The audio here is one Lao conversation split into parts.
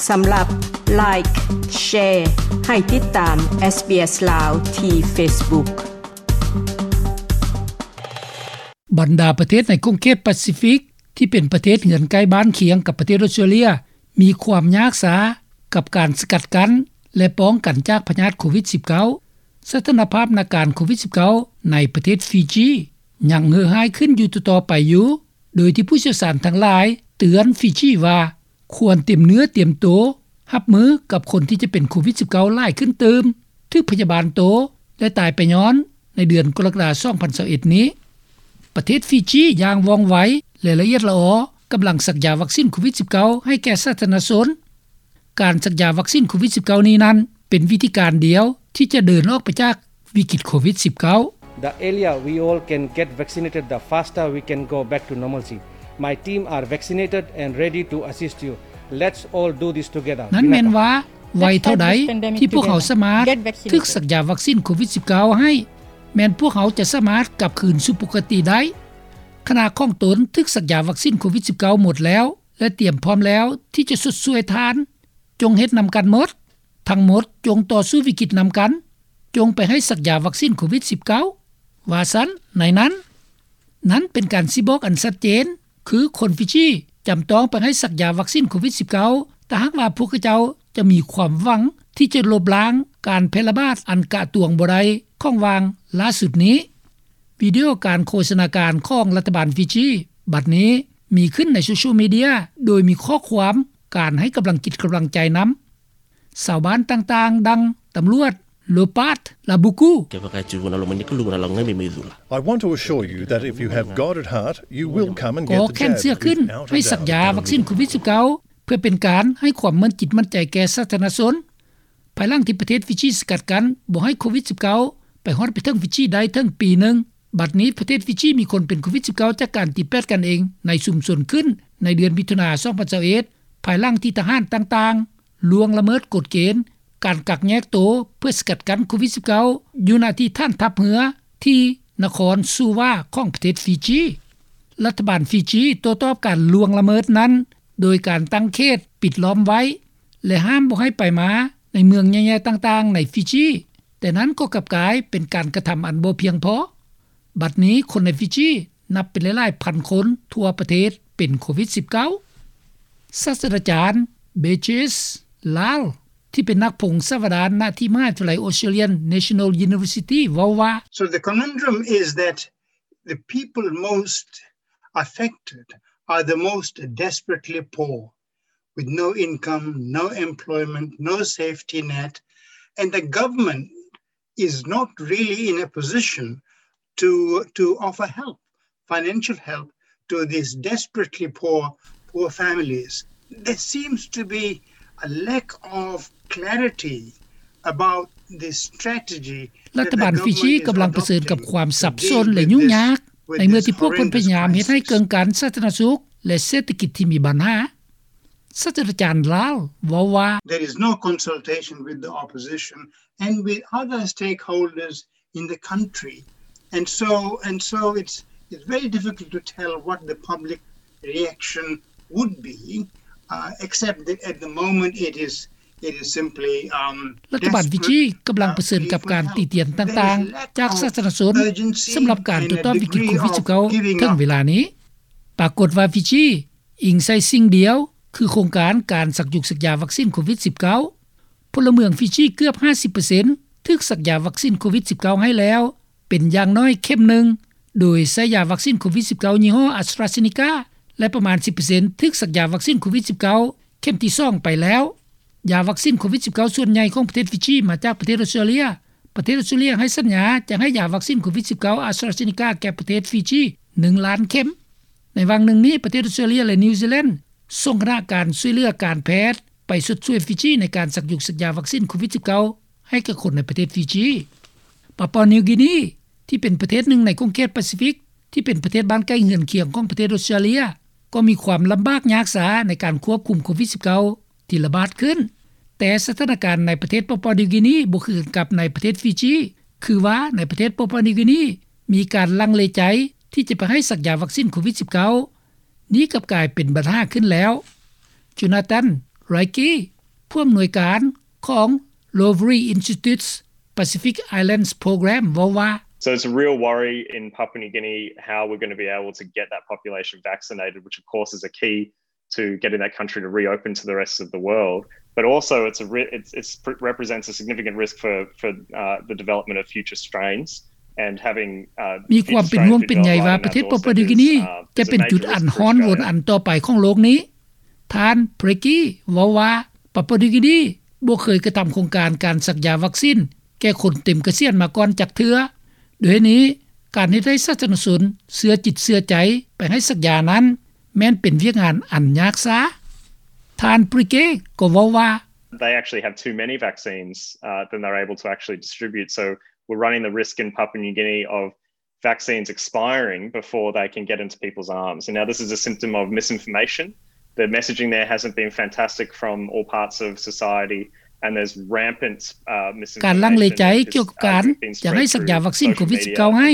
ສຳລັບ Like, Share ໃຫ້ຕິດຕາມ SBS ລາວ ທີ່ Facebook. ບັນດາປະເທດໃນຂົງເຂດປາຊີຟິກ ທີ່ເປັນປະເທດເຮືອນໃກ້ບ້ານຄຽງກັບປະເທດອອສເຕຣເລັຽ ມີຄວາມຍາກຊ້າກັບການສະກັດກັ້ນ ແລະ ປ້ອງກັນຈາກພະຍາດໂຄວິດສິບເກົ້າ. ສະຖານະພາບນາການໂຄວິດສິບເກົ້າໃນປະເທດຟີຈີ ຍັງເຫື່ອຮ້າຍຂຶ້ນຢູ່ຕໍ່ໆໄປຢູ່, ໂດຍທີ່ຜູ້ຊ່ຽວຊານທັງຫຼາຍເຕືອນຟີຈີວ່າ ຄວນຕຽມເນື້ອຕຽມໂຕຮັບມືກັບຄົນທີ່ຈະເປັນໂຄວິດສິບເກົ້າຫຼາຍຂຶ້ນຕື່ມ, ຖືກພະຍາບານໂຕ ແລະ ຕາຍໄປຍ້ອນໃນເດືອນກໍລະກະດາສອງພັນຊາວເອັດນີ້. ປະເທດຟີຈີຢ່າງວ່ອງໄວ ແລະ ລະອຽດລະອໍ ກຳລັງສັກຢາວັກຊີນໂຄວິດສິບເກົ້າໃຫ້ແກ່ສາທາລະນະຊົນ. ການສັກຢາວັກຊີນໂຄວິດສິບເກົ້ານີ້ນັ້ນ ເປັນວິທີການດຽວທີ່ຈະເດີນອອກໄປຈາກວິກິດໂຄວິດສິບເກົ້າ. The earlier we all can get vaccinated, the faster we can go back to normalcy. My team are vaccinated and ready to assist you. Let's all do this together. ນັ້ນແມ່ນວ່າ ໄວເທົ່າໃດທີ່ພວກເຮົາສາມາດຖືກສັກຢາວັກຊີນໂຄວິດສິບເກົ້າໃຫ້ ແມ່ນພວກເຮົາຈະສາມາດກັບຄືນສູ່ປົກກະຕິໄດ້. ຂະນະຂອງຕົນຖືກສັກຢາວັກຊີນໂຄວິດສິບເກົ້າໝົດແລ້ວ ແລະ ຕຽມພ້ອມແລ້ວທີ່ຈະຊົດຊ່ວຍທ່ານ. ຈົ່ງເຮັດນຳກັນໝົດ. ທັງໝົດຈົ່ງຕໍ່ສູ້ວິກິດນຳກັນ. ຈົ່ງໄປໃຫ້ສັກຢາວັກຊີນໂຄວິດສິບເກົ້າ ວ່າຊັ້ນໃນນັ້ນ. ນັ້ນເປັນການຊີ້ບອກອັນຊັດເຈນ ຄືຄົນຟີຈີຈຳຕ້ອງໄປໃຫ້ສັກຢາວັກຊີນໂຄວິດສິບເກົ້າ ຖ້າຫາກວ່າພວກເຂົາເຈົ້າຈະມີຄວາມຫວັງທີ່ຈະລົບລ້າງການແຜ່ລະບາດອັນກະຕວງບໍ່ໄດ້ຂອງຫວ່າງລ່າສຸດນີ້. ວິດີໂອການໂຄສະນາການຂອງລັດຖະບານຟີຈີ ບັດນີ້ມີຂຶ້ນໃນໂຊຊຽວມີເດຍ ໂດຍມີຂໍ້ຄວາມການໃຫ້ກຳລັງຈິດກຳລັງໃຈນຳ. ຊາວບ້ານຕ່າງໆ ດັ່ງຕຳຫຼວດ ໂລປາດ ລາບູກູ I want to assure you that if you have God at heart, you will come and get the jab without a doubt. ກໍແຂນເຊື່ອຂຶ້ນໃຫ້ສັກຢາວັກຊີນໂຄວິດສິບເກົ້າ ເພື່ອເປັນການໃຫ້ຄວາມໝັ້ນຈິດໝັ້ນໃຈແກ່ສາທາລະນະຊົນ. ພາຍຫຼັງທີ່ປະເທດຟີຈີສະກັດກັ້ນບໍ່ໃຫ້ໂຄວິດສິບເກົ້າໄປຮອດໄປເຖິງຟີຈີໄດ້ເຖິງປີໜຶ່ງ, ບັດນີ້ປະເທດຟີຈີມີຄົນເປັນໂຄວິດສິບເກົ້າຈາກການຕີແປດກັນເອງໃນຊຸມຊົນຂຶ້ນໃນເດືອນມິຖຸນາ ສອງພັນຊາວເອັດ ພາຍຫຼັງທີ່ທະຫານຕ່າງໆລ່ວງລະເມີດກົດເກນການກັກແຍກໂຕເພື່ອສະກັດກັ້ນໂຄວິດສິບເກົ້າ ຢູ່ໜ້າທີ່ຖານທັບເຮືອທີ່ນະຄອນຊູວາຂອງປະເທດຟີຈີ. ລັດຖະບານຟີຈີໂຕ້ຕອບການລ່ວງລະເມີດນັ້ນ ໂດຍການຕັ້ງເຂດປິດລ້ອມໄວ້ ແລະ ຫ້າມບໍ່ໃຫ້ໄປມາໃນເມືອງໃຫຍ່ໆຕ່າງໆໃນຟີຈີ, ແຕ່ນັ້ນກໍກັບກາຍເປັນການກະທຳອັນບໍ່ພຽງພໍ. ບັດນີ້ຄົນໃນຟີຈີນັບເປັນຫຼາຍໆພັນຄົນທົ່ວປະເທດເປັນໂຄວິດສິບເກົ້າ. ສາດສະດາຈານ ເບເຈສ ລາລ ທີ່ເປັນນັກພົງສາວະດານ ນະທີ່ມະຫາວິທະຍາໄລ Australian National University ເວົ້າວ່າ So the conundrum is that the people most affected are the most desperately poor, with no income, no employment, no safety net, and the government is not really in a position to, to offer help, financial help, to these desperately poor, poor families. There seems to be a lack of clarity about the strategy. ລັດຖະບານຟີຈີກຳລັງປະເຊີນກັບຄວາມສັບສົນ ແລະ ຫຍຸ້ງຍາກ ໃນເມື່ອທີ່ພວກເພິ່ນພະຍາຍາມເຮັດໃຫ້ເກິ່ງກັນສາທາລະນະສຸກ ແລະ ເສດຖະກິດທີ່ມີບັນຫາ. ສາດສະດາຈານ ລາລ ເວົ້າວ່າ There is no consultation with the opposition and with other stakeholders in the country. And so, and so it's, it's very difficult to tell what the public reaction would be, uh, except that at the moment it is, it is simply, um, ລັດຖະບານຟີຈີກຳລັງປະເຊີນກັບການຕີຕຽນຕ່າງໆຈາກສາທາລະນະຊົນ ສຳລັບການໂຕ້ຕອບວິກິດໂຄວິດສິບເກົ້າເຖິງເວລານີ້. ປາກົດວ່າຟີຈີ ອີງໃສ່ສິ່ງດຽວ ຄືໂຄງການການສັກຢຸກສັກຢາວັກຊີນໂຄວິດສິບເກົ້າ. ພົນລະເມືອງຟີຈີເກືອບຫ້າສິບເປີເຊັນຖືກສັກຢາວັກຊີນໂຄວິດສິບເກົ້າໃຫ້ແລ້ວ ເປັນຢ່າງໜ້ອຍເຂັມໜຶ່ງ ໂດຍໃຊ້ຢາວັກຊີນໂຄວິດສິບເກົ້າຍີ່ຫໍ້ AstraZeneca ແລະ ປະມານສິບເປີເຊັນຖືກສັກຢາວັກຊີນໂຄວິດສິບເກົ້າເຂັມທີສອງໄປແລ້ວ. ຢາວັກຊີນໂຄວິດສິບເກົ້າສ່ວນໃຫຍ່ຂອງປະເທດຟີຈີມາຈາກປະເທດອອສເຕຣເລຍ. ປະເທດອອສເຕຣເລຍໃຫ້ສັນຍາຈະໃຫ້ຢາວັກຊີນໂຄວິດສິບເກົ້າ AstraZeneca ແກ່ປະເທດຟີຈີໜຶ່ງລ້ານເຂັມ. ໃນຫວ່າງໜຶ່ງນີ້ ປະເທດອອສເຕຣເລຍ ແລະ ນິວຊີແລນ ສົ່ງຄະນະການຊ່ວຍເຫຼືອການແພດໄປຊົດຊ່ວຍຟີຈີໃນການສັກຢຸກສັກຢາວັກຊີນໂຄວິດສິບເກົ້າໃຫ້ແກ່ຄົນໃນປະເທດຟີຈີ. ປາປົວນິວກີນີ ທີ່ເປັນປະເທດໜຶ່ງໃນຂົງເຂດປາຊີຟິກ ທີ່ເປັນປະເທດບ້ານໃກ້ເຮືອນຄຽງຂອງປະເທດອອສເຕຣເລຍ ກໍມີຄວາມລຳບາກຍາກຊ້າໃນການຄວບຄຸມໂຄວິດສິບເກົ້າ ທີ່ລະບາດຂຶ້ນ. ແຕ່ສະຖານະການໃນປະເທດປາປົວນິວກີນີບໍ່ຄືກັນກັບໃນປະເທດຟີຈີ ຄືວ່າໃນປະເທດປາປົວນິວກີນີມີການລັງເລໃຈທີ່ຈະໄປໃຫ້ສັກຢາວັກຊີນໂຄວິດສິບເກົ້າ. ນີ້ກັບກາຍເປັນບັນຫາຂຶ້ນແລ້ວ. ໂຈນາຕັນ ໄຣກີ ຜູ້ອຳນວຍການຂອງ Lowry Institute's Pacific Islands Program ເວົ້າວ່າ: So it's a real worry in Papua New Guinea how we're going to be able to get that population vaccinated, which of course is a key to getting that country to reopen to the rest of the world. But also it's a re- it's, it's represents a significant risk for for uh, the development of future strains and having uh, ມີຄວາມເປັນຫ່ວງເປັນໃຍວ່າປະເທດປາປົວນິວກິນີຈະເປັນຈຸດອັນຮ້ອນວົນອັນຕໍ່ໄປຂອງໂລກນີ້. ທ່ານ Blakey ເວົ້າວ່າ ປາປົວນິວກິນີບໍ່ເຄີຍກະທຳໂຄງການການສັກຢາວັກຊິນແກ່ຄົນເຕັມກະສຽນມາກ່ອນຈັກເທື່ອ. ດ້ວຍນີ້ ການເຮັດໃຫ້ສາທາລະນະຊົນເຊື່ອຈິດເຊື່ອໃຈໄປໃຫ້ສັກຢານັ້ນ ແມ່ນເປັນວຽກງານອັນຍາກຊ້າ. ທ່ານ Blakey ກໍເວົ້າວ່າ: They actually have too many vaccines uh, than they're able to actually distribute. So we're running the risk in Papua New Guinea of vaccines expiring before they can get into people's arms. And now this is a symptom of misinformation. The messaging there hasn't been fantastic from all parts of society. And there's rampant uh, misinformation. ການລັງເລໃຈກ່ຽວກັບການຢາກໃຫ້ສັກຢາວັກຊິນໂຄວິດ-19 ໃຫ້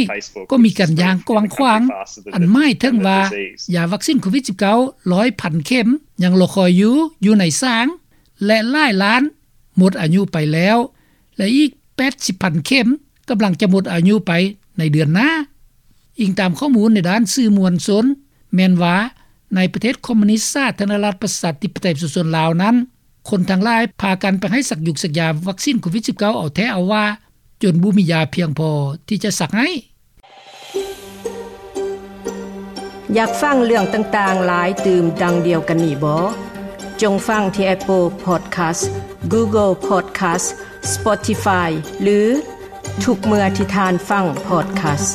ກໍມີການຢ່າງກວ້າງຂວາງ ອັນໝາຍເຖິງວ່າຢາວັກຊິນໂຄວິດ-19 ຮ້ອຍພັນເຂັມຍັງລໍຄອຍຢູ່ ຢູ່ໃນສາງ ແລະ ຫຼາຍລ້ານໝົດອາຍຸໄປແລ້ວ ແລະ ອີກ 80,000 ເຂັມກຳລັງຈະໝົດອາຍຸໄປໃນເດືອນໜ້າ. ອີງຕາມຂໍ້ມູນໃນດ້ານສື່ມວນຊົນ ແມ່ນວ່າໃນປະເທດຄອມມູນິດສາທາລະນະລັດປະຊາທິປະໄຕປະຊາຊົນລາວນັ້ນ ຄົນທັງຫຼາຍພາກັນໄປໃຫ້ສັກຢາວັກຊິນໂຄວິດ-19 ເອົາແທ້ເອົາວ່າ ຈົນບໍ່ມີຢາພຽງພໍທີ່ຈະສັກໃຫ້. ຢາກຟັງເລື່ອງຕ່າງໆຫຼາຍຕື່ມດັ່ງດຽວກັນນີ້ບໍ? ຈົ່ງຟັງທີ່ Apple Podcast, Google Podcast, Spotify ຫຼື ທຸກເມື່ອທີ່ທ່ານຟັງ Podcast.